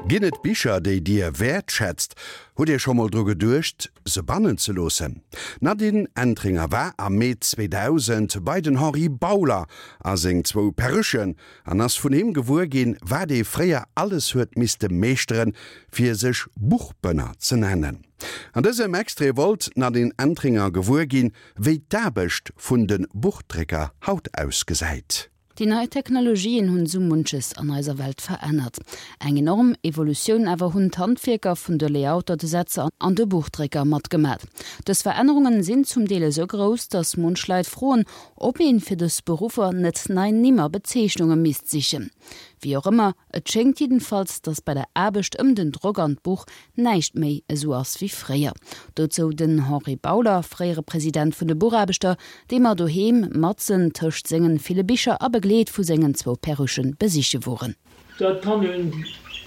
Ginn et Bicher, déi Dir wäertschätzt? Hutt Dir scho mol dru geduecht, se bannen ze loossen? D'Nadine Entringer war am Mee 2000 bei den Henri Bauler a seng zwou Perruchen an ass vun him gewuer ginn, wat ee fréier alles huet misste meeschteren, fir sech Buchbënner ze nennen. An dësem Extrait wollt d'Nadine Entringer gewuer ginn, wéi d'Aarbecht vun de Buchdrécker haut ausgesäit. Déi nei Technologien hunn sou munches an eiser Welt verännert. Eng enorm Evolutioun awer hunn d'Handwierker vun de Layouter, de Setzer an de Buchdrécker matgemat. Dës Verännerungen sinn zum Deel esou grouss, dass munch Leit froen, ob een fir dës Beruffer net nei Nimm a Bezeechnunge misst sichen. Wéi och ëmmer, et schéngt jiddenfalls, dass bei der Aarbecht ëm den Drock an d'Buch näischt méi esou ass wéi fréier. Dozou den Henri Bauler, fréiere President vun de Buchaarbechter, dee mer doheem matzen tëscht sengen ville Bicher a begleet vu sengen zwou Perruchen besiche woren. Dat kann een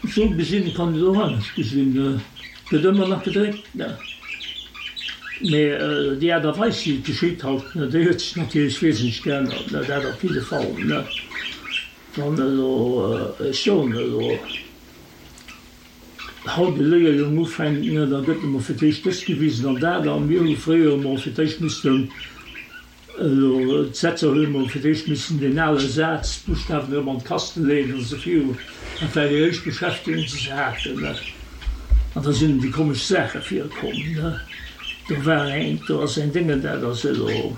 esou gesinn, et kann een et och anescht gesinn. Et gëtt ëmmer nach gedréckt, ne? Mee déi Aart a Weis, wéi et geschitt haut, ne, déi huet sech natierlech wesentlech geännert, ne, dat op jidde Fall, ne. Wann elo, ech soen elo, Haut e Léierjong ufänkt, ne, da gëtt emol fir d'éischt dëst gewisen an dat. A mir hu fréier emol fir d'éischt missten, elo d'Setzer hunn emol fir d'éischt missen deen ale Saz, d'Buschtawen erëm an d'Kaste leeën an esou viru. Dat war déi éischt Beschäftegung, déi se haten, ne. An da sinn déi komesch Saache virkomm, ne. Do war eng, do ass eng Déngen, dat ass elo,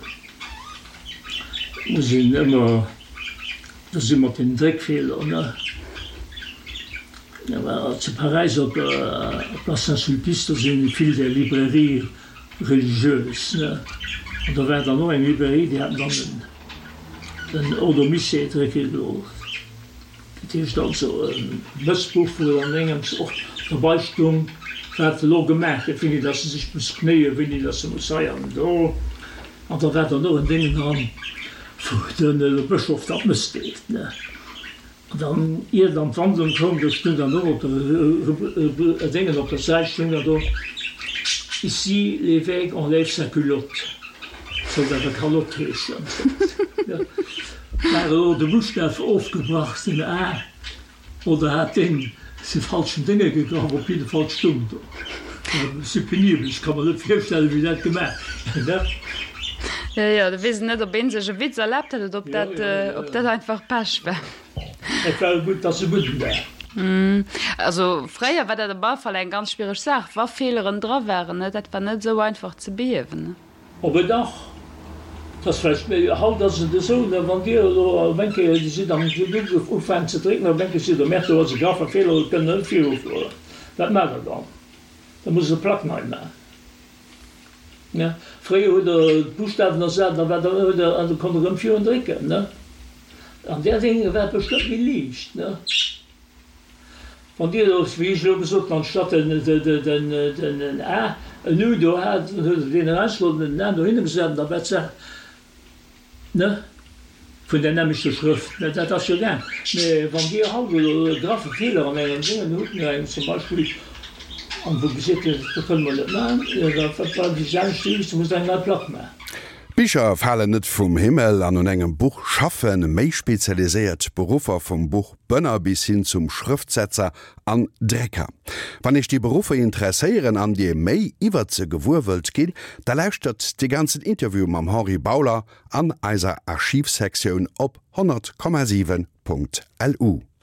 muss een ëmmer. Do si mat den Dréckfeeler, ne? Zu Paräis op der Place Saint-Sulpice, do sinn vill där Librairies religieuses, ne? An do war dann och eng Librairie, déi haten dann den Ordo Missae drécke gelooss. Dat heescht also e Mëssbuch, wou dann engems och derbei stung, wat elo gemaach gëtt, wéini dass se sech muss knéien, wéini dass se muss hei an do. An da war dann och en Déngen dran, wou den Bëschof dann d'Mëss deelt, ne. An dann, ier dann d'Wandlung koum, do stung dann och op der Déngen op der Säit stung dann do, Ici l'évêque enlève sa culotte. Sollt awer Kalotte heeschen. War elo de Buschtaf ofgebrach, den A. Oder hat deen se falschen Dénge gegraff? Op jidde Fall stung do. Si penibel, ech ka mer net virstellen, wéi dat gemaach gëtt. Jo, jo, do weess een net, ob een sech e Witz erlaabt huet oder ob dat, ob dat einfach Pech war. Et war e gutt, dass e gudden war. Also fréier war dat op alle Fall eng ganz schwiereg Saach, wa Feeleren dra waren, ne, dat war net esou einfach ze behiewen, ne. Op e dach, 't ass vläicht méi, haut ass et esou, ne, wann Dir elo op eng Kéier, Dir sidd am Duerf, ufänkt ze drécken, op eng Kéier sidd Der, merkt do ass e graffe Feeler, et kënnt net virufueren. Wat maacht Der dann? Da musst Der d'Plack nei maachen. Ne? Fréier hutt Der d'Buschtawen ersat, da war der, hutt Der, an da konnt Der erëm virun drécken, ne? An där Dénge war et bestëmmt méi liicht, ne? Wann Dir elo, wéi ech elo gesot hunn, anstatt den A en U do hat, dann huet Der deen erausgeholl an den A dohinner gesat an da war d'Saach, ne, vun där nämmlechter Schrëft. Mä dat ass jo gaang. Mä wann Dir haut elo e graffe Feeler an engem Déngen hutt, no engem zum Beispill, an wou gesot gëtt, dat kënne mer net maachen, jo da bleift déi selwecht Devis, da musst Der eng nei Plack maachen. Bicher falen net vum Himmel an un engem Buch schaffen méi spezialiséiert Beruffer vum Buch Bënner bis hin zum Schrëftsetzer an Drécker. Wann Iech déi Beruffer interesséieren an Dir méi iwwert se gewuer wëllt ginn, da lauschtert de ganzen Interview mam Henri Bauler an eiser Archivsektioun op 100,7.lu.